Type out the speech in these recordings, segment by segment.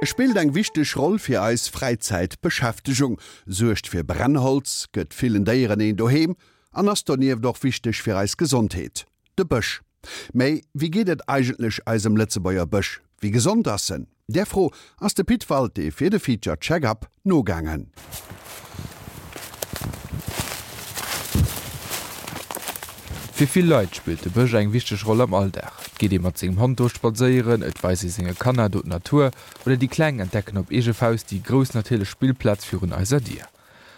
E spillt eng wichteg Roll fir eis Fräizäitbeschäftegung, suergt fir Brennholz, gëtt villen Déieren een Doheem an ass donieft och wichteg fir eis Gesondheet. De Bësch. Mä wéi geet et eigentlech eisem Lëtzebuerger Bësch? Wéi gesond ass en? Där Fro ass de Pit Walté fir de Feature Check-Up nogaangen. Fir vill Leit spillt de Bësch eng wichteg Roll am Alldag. Et geet ee mat sengem Hond do spadséieren, et weist ee senge Kanner do d'Natur oder déi Kleng entdecken op eege Faust déi grouss natierlech Spillplaz virun eiser Dier.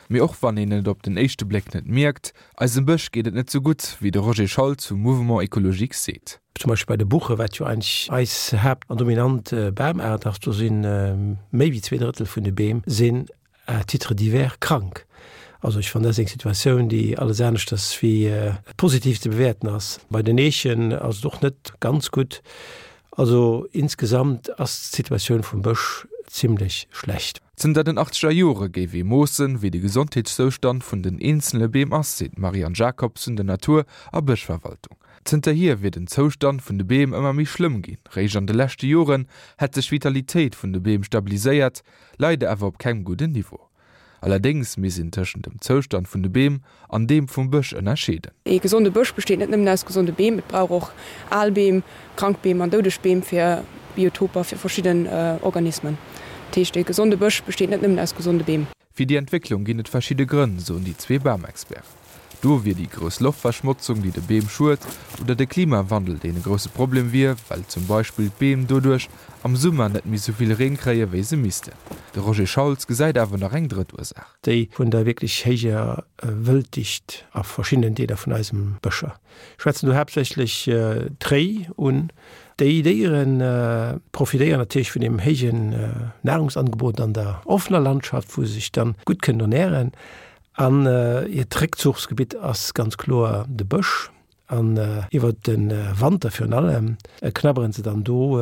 Mee och wann een et op den éischte Bléck net mierkt, eisem Bësch geet et net sou gutt, wéi de Roger Schauls vum Mouvement Ecologique seet. Zum Beispill bei de Buche, wat jo eigentlech eis Haapt an dominant Bamaart ass, do si méi wéi 2/3 vun de Beem sinn à titre divers krank. Also ech fannen, dat ass eng Situatioun, déi alles aneschters wéi positiv ze bewäerten ass. Bei den Eechen ass et och net ganz gutt. Also insgesamt ass d'Situatioun vum Bësch zimlech schlecht. Zënter den achtzeger Jore géif ee moossen, wéi de Gesondheetszoustand vun den eenzele Beem ass, seet d'Marianne Jacobs vun der Natur a Bëschverwaltung. Zënterhier wier den Zoustand vun de Beem ëmmer méi schlëmm ginn. Réischt an de leschte Joren hätt sech d'Vitalitéit vun de Beem stabiliséiert, leider awer op kengem gudden Niveau. Allerdéngs misst een tëschent dem Zoustand vun de Beem an deem vum Bësch ënnerscheeden. Ee gesonde Bësch besteet net nëmmen aus gesonde Beem, et brauch och al Beem, krank Beem an doudeg Beem fir Biotoper fir verschidden Organismen. Dat heescht, ee gesonde Bësch besteet net nëmmen aus gesonde Beem. Fir déi Entwécklung ginn et verschidde Grënn, soen déi zwee Bamexperten. Do wier déi grouss Loftverschmotzung, déi de Beem schued, oder de Klimawandel, deen e grousse Problem wier, well zum Beispill d'Beem doduerch am Summer net méi sou vill Reen kréie wéi se missten. De Roger Schauls gesäit awer nach eng drëtt Ursaach. Déi vun der wierklech héijer Wëlddicht a verschiddenen Deeler vun eisem Bëscher. Ech schwätzen do haaptsächlech d'Réi un. Déi Déiere profitéieren natierlech vun deem héijen Nahrungsangebot an der offener Landschaft, wou se sech dann gutt kënnen ernären. An hiert Réckzuchsgebitt ass ganz kloer de Bësch. An iwwer de Wanter virun allem knabberen se dann do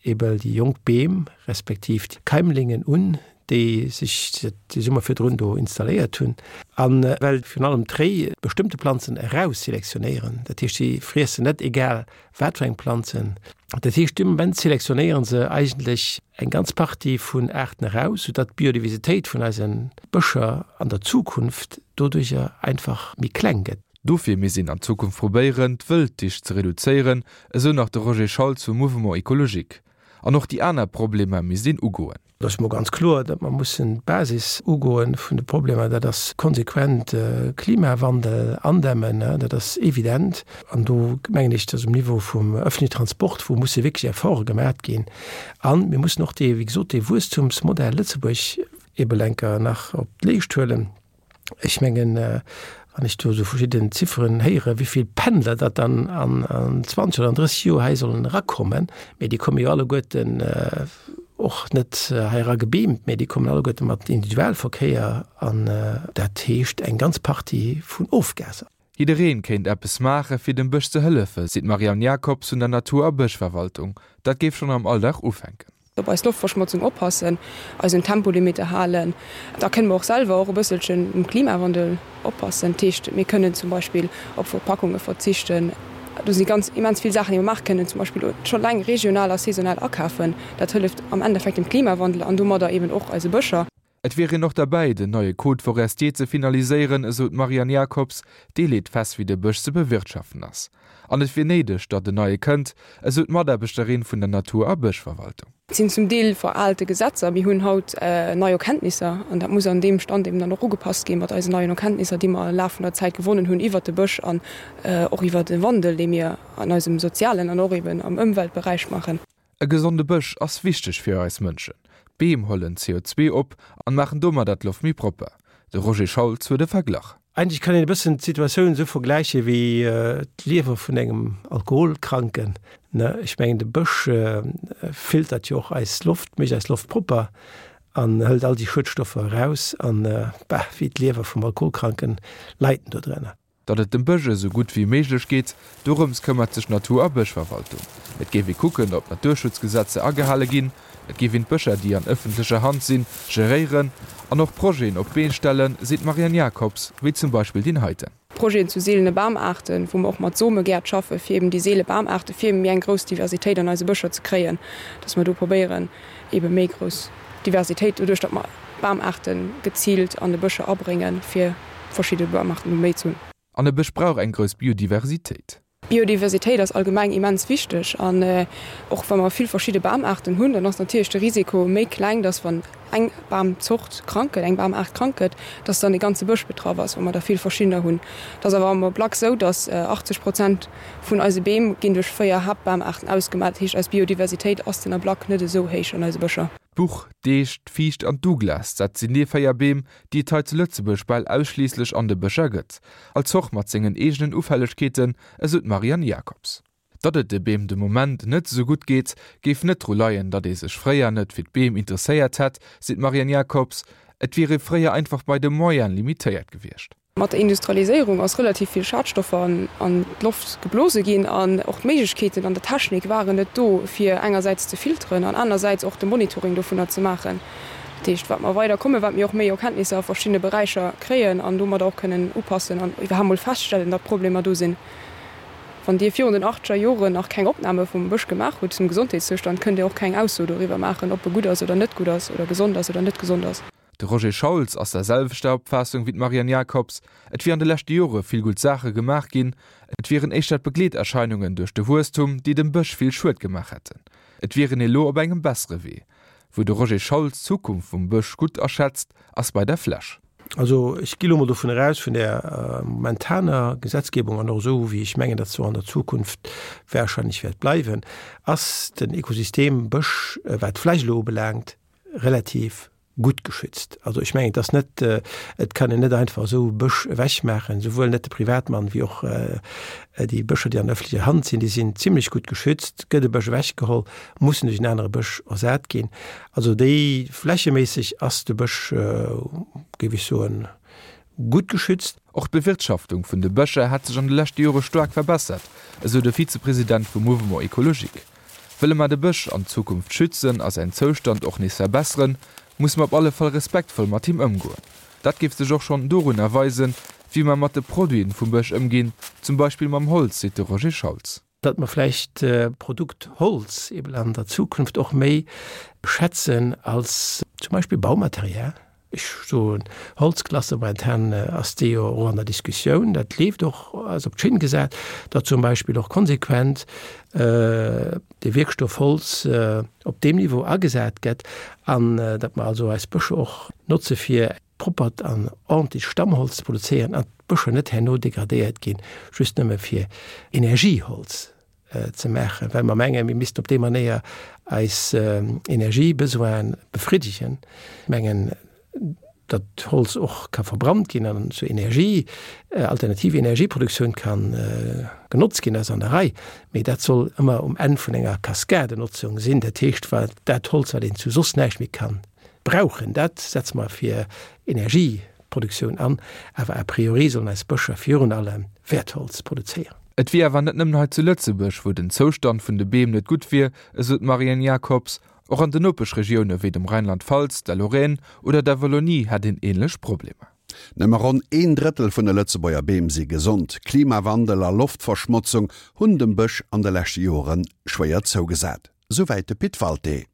ebe déi jonk Beem, respektiv d'Keimlingen un, déi sech de Summer virdrun do installéiert hunn. A well virun allem d'Réi bestëmmte Planzen erausselektionéieren, dat heescht si friessen net egal Wat fir eng Planzen? Dat heescht, dee Moment selektionéiere se eigentlech eng ganz Partie vun Aarten eraus, soudatt d'Biodiversitéit vun eise Bëscher an der Zukunft doduercher einfach méi kleng gëtt. Dofir misst een an Zukunft probéieren, d'Wëlddicht ze reduzéieren, esou nach de Roger Schauls vum Mouvement Ecologique. An och déi aner Problemer misst een ugoen. Et ass emol ganz kloer, datt mer mussen d'Basis ugoen vun de Problemer. Dat ass konsequent Klimawandel andämmen, dat ass evident. An do mengen ech, datt um Niveau vum öffentlichen Transport, wou musse wierklech Efforte gemaat ginn. A mir mussen och dee, wéi gesot, dee Wuesstumsmodell Lëtzebuerg ebe lenker nach op d'Leescht huelen. Ech mengen, wann ech do esou verschidden Zifferen héieren, wéi vill Pendler datt dann an 20 oder an 30 Joer hei sollen erakommen, mee déi komme jo alleguerten och net hei era gebeamt, mee déi kommen alleguerte mat Individualverkéier an dat heescht eng ganz Partie vun Ofgaser. Jiddereen kéint eppes maache fir dem Bësch ze hëllefe, seet d'Marianne Jacobs vun der Natur a Bëschverwaltung. Dat géif schonn am Alldag ufänken. Op eis Loftverschmotzung oppassen, eis un Tempolimite halen. Da kënne mer och selwer och e bësselchen um Klimawandel oppassen. Dat heescht, mir kënnen zum Beispill op Verpackunge verzichten. Do si ganz immens vill Saachen, déi mer maache kënnen, zum Beispill scho laang regional a saisonal akafen. Dat hëlleft am Endeffekt dem Klimawandel an domadder eben och eise Bëscher. Et wier een och derbäi, den neie Code forestier ze finaliséieren, esou d'Marianne Jacobs. Dee leet fest, wéi de Bësch ze bewirtschaften ass. An et wier néideg, datt en neie kënnt, esou d'Mataarbechterin vun der Natur a Bëschverwaltung. Et sinn zum Deel veralte Gesetzer. Mir hunn haut nei Erkenntnisser an dat muss an deem Stand eben dann och ugepasst ginn, mat eisen neien Erkenntnisser, déi mer am Laf vun der Zäit gewonnen hunn iwwert de Bësch an och iwwert de Wandel, dee mir an eisem sozialen an och eben am Ëmweltberäich maachen. E gesonde Bësch ass wichteg fir eis Mënschen. D'Beem hollen CO2 op an maachen domadder d'Loft méi propper. De Roger Schauls huet e Verglach. Eigentlech kann een e bëssen d'Situatioun esou vergläiche wéi d'Liewer vun engem Alkoholkranken. Ech mengen de Bësch filtert jo och eis Loft, mécht eis Loft propper an hëlt all déi Schuedstoffer eraus an, bah, wéi d'Liewer vum Alkoholkranken leit en do drënner. Datt et dem Bësch esou gutt wéi méiglech geet, dorëms këmmert sech d'Natur a Bëschverwaltung. Et géif ee kucken, ob d'Naturschutzgesetzer agehale ginn, et géif een d'Bëscher, déi an ëffentlecher Hand sinn, geréieren an och Projeten op d'Been stellen, seet d'Marianne Jacobs, wéi zum Beispill deen heiten. Projeten zu seelene Bamaarten, wou mer och mat Somegäert schaffe fir eben déi seele Bamaarte fir eben méi eng grouss Diversitéit an eise Bëscher ze kréien, dass mer do probéieren ebe méi grouss Diversitéit doduerch datt mer Bamaarte geziilt an de Bëscher abréngen, fir verschidde Bamaarten do méi ze hunn. An e Bësch brauch eng grouss Biodiversitéit. Biodiversitéit ass allgemeng immens wichteg an och wa mer vill verschidde Bamaarten hunn, dann ass natierlech de Risiko méi kleng, dass wann eng Bamzort krank gëtt, eng Bamaart krank gëtt, dass dann e ganze Bësch betraff ass, wa mer der vill verschiddener hunn. Et ass awer am Ablack esou, dass 80 Prozent vun eise Beem ginn duerch 4 Haaptbamaarten ausgemaach. Dat heescht, eis Biodiversitéit ass den Ablack net esou héich an eise Bëscher. D'Buch, d'Eech, d'Fiicht an d'Douglas, dat sinn déi 4 Beem, déi et hei zu Lëtzebuerg bal ausschliisslech an de Bëscher gëtt. All Zort mat sengen eegenen Ufällegkeeten, esou d'Marianne Jacobs. Datt et de Beem de Moment net esou gutt geet, géif net dru leien, datt ee sech fréier net fir d'Beem interesséiert hätt, seet d'Marianne Jacobs. Et wier ee fréier einfach bei de Moyene limitéiert gewiescht. Mat der Industrialiséierung ass relativ vill Schadstoffer an d'Loft geblose ginn an och d'Méiglechkeeten an der Technik waren net do, fir engersäits ze filteren an anersäits och de Monitoring dovunner ze maachen. Dat heescht, wat mer weider kommen, wat mir och méi Erkenntnisser a verschiddene Beräicher kréien an domadder och kënnen upassen an iwwerhaapt mol feststellen, datt Problemer do sinn. Wann Dir virun den achtzeger Joren nach keng Opname vum Bësch gemaach hutt zum Gesondheetszoustand, kënnt Dir och keng Ausso doriwwer maachen, ob e gutt ass oder net gutt ass oder gesond ass oder net gesond ass. De Roger Schauls ass der selwechter Opfaassung wéi d'Marianne Jacobs, Et wier an de leschte Jore vill gutt Saache gemaach ginn, et wieren éischter d'Begleeterscheinungen duerch de Wuesstum, déi dem Bësch vill Schued gemaach hätten. Et wier een elo op engem bessere Wee. Wou de Roger Schauls d'Zukunft vum Bësch gutt aschätzt, ass bei der Fläch. Also ech gi lo mol dovun eraus, vun där momentaner Gesetzgebung an och esou wéi ech mengen, datt se och an der Zukunft wahrscheinlech wäert bleiwen, ass den Ekosystem Bësch, wat d'Fläch elo ubelaangt, relativ gutt geschützt. Also ech mengen, et ass net, et kann een net einfach esou Bësch ewechmaachen, souwuel net de Privatmann wéi och déi Bëscher, déi an öffentlecher Hand sinn, déi sinn zimlech gutt geschützt. Gëtt e Bësch ewechgeholl, muss en duerch en anere Bësch ersat ginn. Also déi flächeméisseg ass de Bësch, géif ech soen, gutt geschützt. Och d'Bewirtschaftung vun de Bëscher hätt sech an de leschte Jore staark verbessert, esou de Vizepresident vum Mouvement Ecologique. Wëlle mer de Bësch an Zukunft schützen a säin Zoustand och nees verbesseren, musse mer op alle Fall respektvoll mat him ëmgoen. Dat géif sech och schonn dorunner weisen, wéi mer mat de Produiten vum Bësch ëmginn, zum Beispill mam Holz, seet de Roger Schauls. Datt mer vläicht d'Produkt Holz eben an der Zukunft och méi schätzen als zum Beispill Baumaterial. Ech soen Holzklasse, momentan ass déi jo och an der Diskussioun, dat leeft och, ass op d'Schinn gesat, datt zum Beispill och konsequent de Wierkstoff Holz op deem Niveau agesat gëtt an datt mer also eis Bëscher och notze fir proppert an ordentlecht Stammholz ze produzéieren an d'Bëscher net herno degradéiert ginn, just nëmme fir Energieholz ze maachen, well mer mengen, mir missten op déi Manéier eis Energiebesoine befriddegen. Ech mengen, datt Holz och ka verbrannt ginn an zur Energie, alternativ Energieproduktioun ka genotzt ginn, ass an der Rei, mee dat soll ëmmer um Enn vun enger Kaskadenotzung sinn. Dat heescht, wat dat Holz, wat een zu soss näischt méi ka brauchen, dat setze mer fir Energieproduktioun an, awer a priori sollen eis Bëscher virun allem Wäertholz produzéieren. Et wier awer net nëmmen hei zu Lëtzebuerg, wou den Zoustand vun de Beem net gutt wier, esou d'Marianne Jacobs. Och an den Nopeschregioune wéi dem Rheinland-Pfalz, der Lorraine oder der Wallonie hätt een änlech Problemer. Nëmme ronn een Drëttel vun de Lëtzebuerger Beem si gesond. Klimawandel a Loftverschmotzung hunn dem Bësch an de leschte Jore schwéier zougesat. Souwäit de Pit Walté.